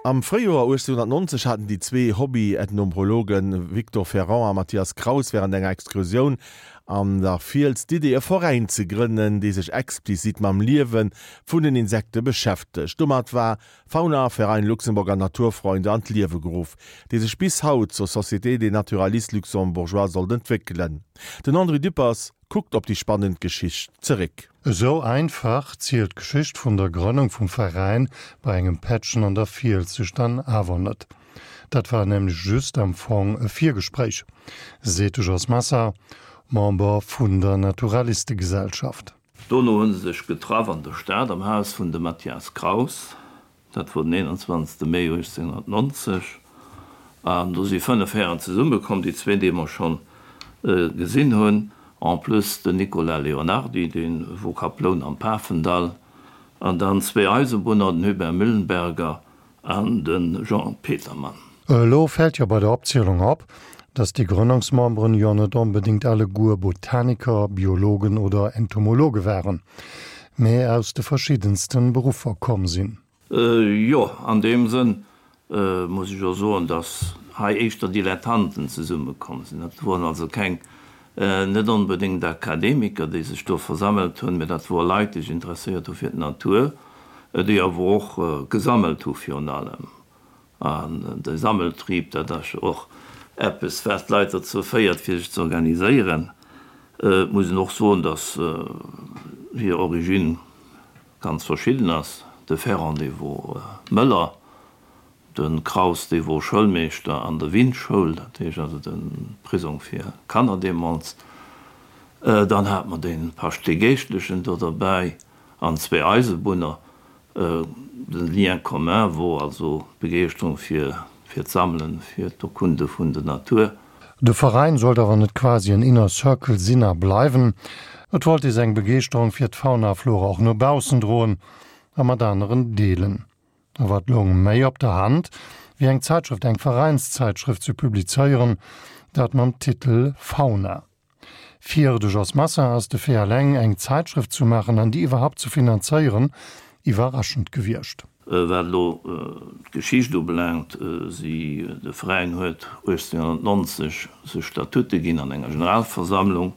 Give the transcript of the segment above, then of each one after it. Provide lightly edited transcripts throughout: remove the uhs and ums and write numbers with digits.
Am Fréijoer 1890 haten déi zwee Hobby-Ethnombrologen Victor Ferrant a Mathias Kraus wärend enger Excursioun an der Fiels d'Idee, e Veräin ze grënnen, dee sech explizit mam Liewe vun den Insekte beschäftegt. Domat war Fauna Verein Luxemburger Naturfreunde an d'Liewe geruff, dee sech bis haut zur Société des Naturalistes Luxembourgeois sollt entwéckelen. Den André Düppers kuckt op déi spannend Geschicht zeréck. Esou einfach zielt d'Geschicht vun der Grënnung vum Veräin bei engem Pättchen an der Fiels sech dann awer net. Dat war nämlech just am Fong e Virgespréich, seet de Jos Massa, Member vun der Naturalistegesellschaft. Dono hu se sech getraff an der Stad am Haus vun dem Mathias Kraus. Dat wor den 21. Mee 1890. An do si 5 Hären zesummekomm, déi zwee, déi mer schonn gesinn hunn, en plus den Nicolas Leonardy, dee wor Kaploun am Pafendall, an dann zwee Eisebunner, den Hubert Müllenberger an de Jean Petermann. Elo fält jo bei der Opzielung op, dass déi Grënnungsmemberen jo net onbedéngt alleguer Botaniker, Biologen oder Entomologe waren, mä aus de verschiddensten Beruffer komm sinn. Jo, an deem Sënn muss ech och soen, dass hei éischter Dilettanten zesummekomm sinn. Dat woren also keng, net onbedéngt Akademiker, déi sech do versammelt hunn, mä dat wore Leit, déi sech interesséiert hu fir d'Natur, déi awer och gesammelt hu virun allem. An de Sammeltrieb, dat ass jo och eppes, wat d'Leit dozou féiert, fir sech ze organiséieren. Et muss een och soen, datt hir Origine ganz verschidden ass. De Ferrand, dee wor Mëller, de Kraus, dee wor Schoulmeeschter an der Windschoul, dat heescht also de Prisong fir Kanner deemools. Dann hate mer de Pascht, dee Geeschtlechen do derbäi, an zwee Eisebunner. Den Lien commun wor also d'Begeeschterung fir fir d'Sammelen, fir d'Erkunde vun der Natur. De Veräin sollt awer net quasi en Inner Circle sinn a bleiwen. Et wollt ee seng Begeeschterung fir d'Fauna a Flora och no baussen droen a mat aneren deelen. A wat loung méi op der Hand, wéi eng Zäitschrëft, eng Veräinszäitschrëft ze publizéieren, dat mam Titel Fauna. Fir de Jos Massin ass de Fait eleng, eng Zäitschrëft zu maachen an déi iwwerhaupt ze finanzéieren, iwwerraschend gewiescht. Wat elo d'Geschicht ubelaangt, si, de Veräin huet 1890 sech Statute ginn an enger Generalversammlung,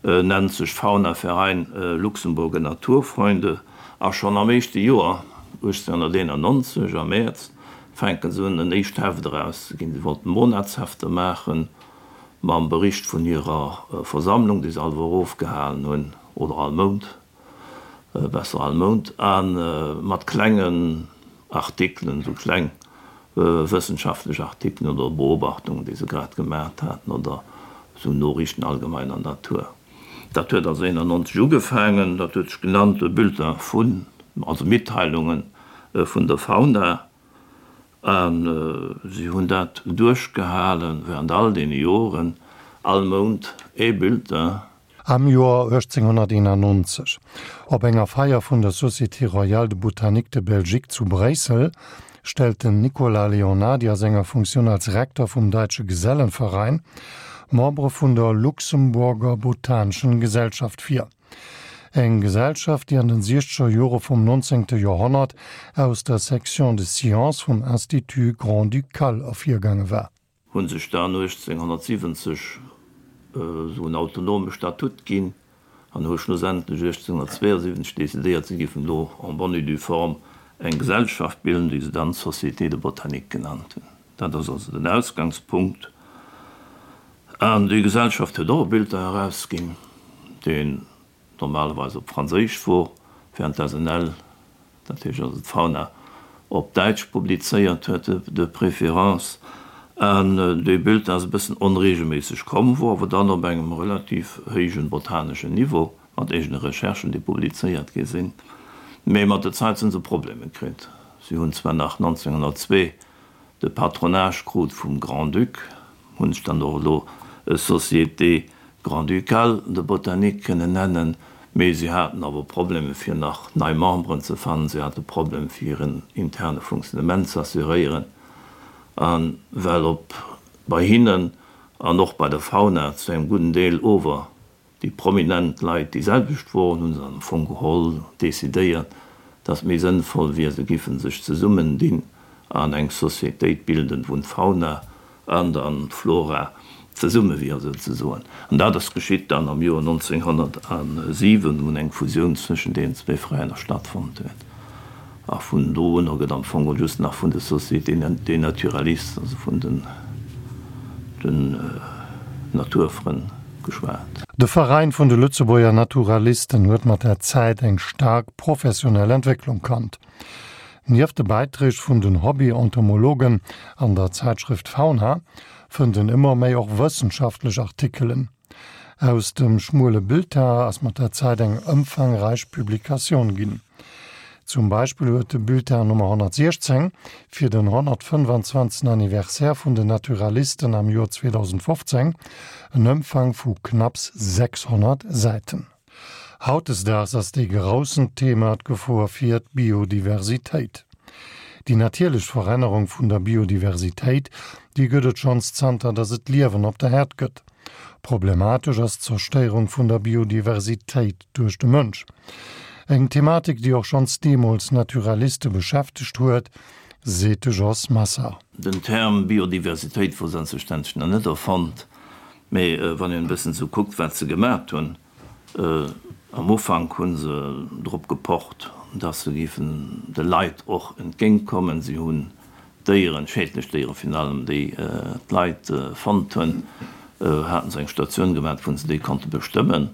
nennt sech Fauna Verein Luxemburger Naturfreunde a schonn am éischte Joer, 1891 am Mäerz, fänke se un en éischt Heft erauszeginn. Si wollten Monatshefter maachen, mam Bericht vun hirer Versammlung, déi se all Woch ofgehalen hunn, oder all Mount, besser all Mount, a mat klengen Artikelen, esou kleng wëssenschaftlech Artikelen oder Beobachtungen, déi se grad gemaacht haten, oder esou Noriichten allgemeiner Natur. Dat huet also 91 ugefaangen, dat huet sech genannt Bulletin vun, also Mitteilungen vun der Fauna. A si hunn dat duerchgehale während all deene Joren, all Mount ee Bulletin. Am Joer 1891, op enger Feier vun der Société Royale de Botanique de Belgique zu Bréissel, stellt den Nicolas Leonardy a senger Funktioun als Rektor vum Deutsche Gesellenverein Membere vun der Luxemburger Botanischen Gesellschaft vir. Eng Gesellschaft, déi an den siechzeger Jore vum nonzéngte Joerhonnert aus der Section des Sciences vum Institut Grand-Ducal ervirgaange war. Hu sech dann 1870 esou en autonome Statut ginn an hu schlussendlech 1872 decidéiert, si géifen elo en bonne et due forme eng Gesellschaft bilden, déi se dann Société de Botanique genannt hunn. Dat ass also den Ausgangspunkt. An déi Gesellschaft huet och e Bulletin erausginn, deen normalerweis op Franséisch wor, während d'SNL, dat heescht also d'Fauna, op Däitsch publizéiert huet, de préférence. An dee Bulletin ass e bëssen onregelméisseg komm, wor awer dann op engem relativ héijen botaneschen Niveau, mat eegene Recherchen, déi publizéiert gi sinn. Mee mat der Zäit sinn se Problemer kritt. Si hunn zwar nach 1902 de Patronage krut vum Grand-Duc, hunn sech dann och elo Société Grand-Ducale de Botanique kënnen nennen, mee si haten awer Problemer fir nach nei Memberen ze fannen, si hate Problem fir hiren interne Fonctionnement z'assuréieren, a well op bei hinnen an och bei der Fauna zu engem gudden Deel ower Déi prominent Leit déi selwecht woren, hu se am Fong geholl decidéiert, datt méi sënnvoll wier, se giffen sech zesummen dinn. An eng Sociétéit bilden, wou d'Fauna an dann d'Flora zesumme wier souzesoen. An dat ass geschitt dann am Joer 1907, wou eng Fusioun zwëschen deenen zwéi Veräiner stattfonnt huet. A vun do un gëtt am Fong just nach vun de Sociétés des naturalistes, also vun den Naturfrënn geschwat. De Veräin vun de Lëtzebuerger Naturalisten huet mat der Zäit eng staark professionell Entwécklung kannt. Nieft de Bäiträg vun den Hobby-Entomologen an der Zäitschrëft Fauna fënnt en ëmmer méi och wëssenschaftlech Artikelen. Aus dem schmuele Bulletin ass mat der Zäit eng ëmfangräich Publikatioun ginn. Zum Beispill huet de Bulletin Nummer 116 fir den 125. Anniversaire vun den Naturalisten am Joer 2015 en Ëmfang vu knapps 600 Säiten. Hautdesdaags ass dee groussen Thema d'Gefor fir d'Biodiversitéit. Déi natierlech Verännerung vun der Biodiversitéit, déi gëtt et schonns zanter datt et Liewen op der Äerd gëtt. Problematesch ass d'Zerstéierung vun der Biodiversitéit duerch de Mënsch. Eng Thematik, déi och schonns deemools Naturaliste beschäftegt huet, seet de Jos Massard. Den Term Biodiversitéit wor selbstverständlech nach net erfonnt, mee wann een e bëssen esou kuckt, wat se gemat hunn, Am Ufank hu se drop gepocht, dass se géifen de Leit och entgéintkommen. Si hunn Déieren, schädlech Déieren virun allem, déi d'Leit fonnt hunn, hate se eng Statioun gemaat, wou se déi konnte bestëmmen.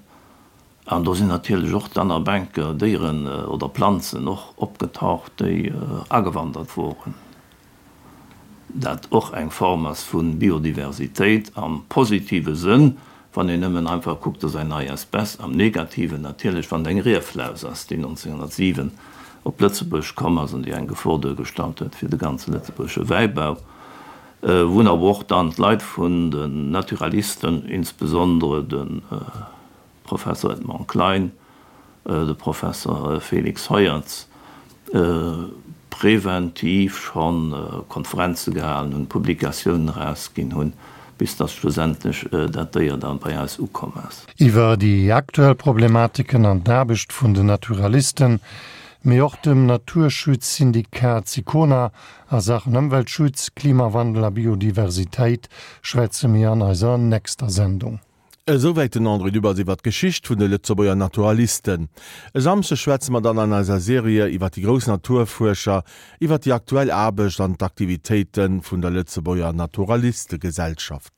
An do sinn natierlech och dann ab enker Déieren oder Planzen och opgetaucht, déi agewandert woren. Dat och eng Form ass vu Biodiversitéit am positive Sënn, wann een nëmmen einfach kuckt, dass eng nei Espèce, am negativen natierlech, wann et eng Rieflaus ass, déi 1907 op Lëtzebuerg komm ass an déi eng Gefor duergestallt huet fir de ganze lëtzebuergesche Wäibau, wou awer och dann d'Leit vun den Naturalisten, insbesondere de Professor Edmond Klein, de Professor Félix Heuertz, preventiv scho Konferenze gehalen hunn, Publikatiounen erausginn hunn, bis datt schlussendlech dat Déier da bei eis ukomm ass. Iwwer déi aktuell Problematiken an d'Aarbecht vun den Naturalisten, mee och dem Naturschutzsyndikat Sicona a Saachen Ëmweltschutz, Klimawandel a Biodiversitéit schwätze mir an eiser nächster Sendung. Esouwäit den André Dübbers iwwer d'Geschicht vun de Lëtzebuerger Naturalisten. E Samschdeg schwätze mer dann an eiser Serie iwwer déi grouss Naturfuerscher, iwwer déi aktuell Aarbecht an d'Aktivitéite vun der Lëtzebuerger Naturalistegesellschaft.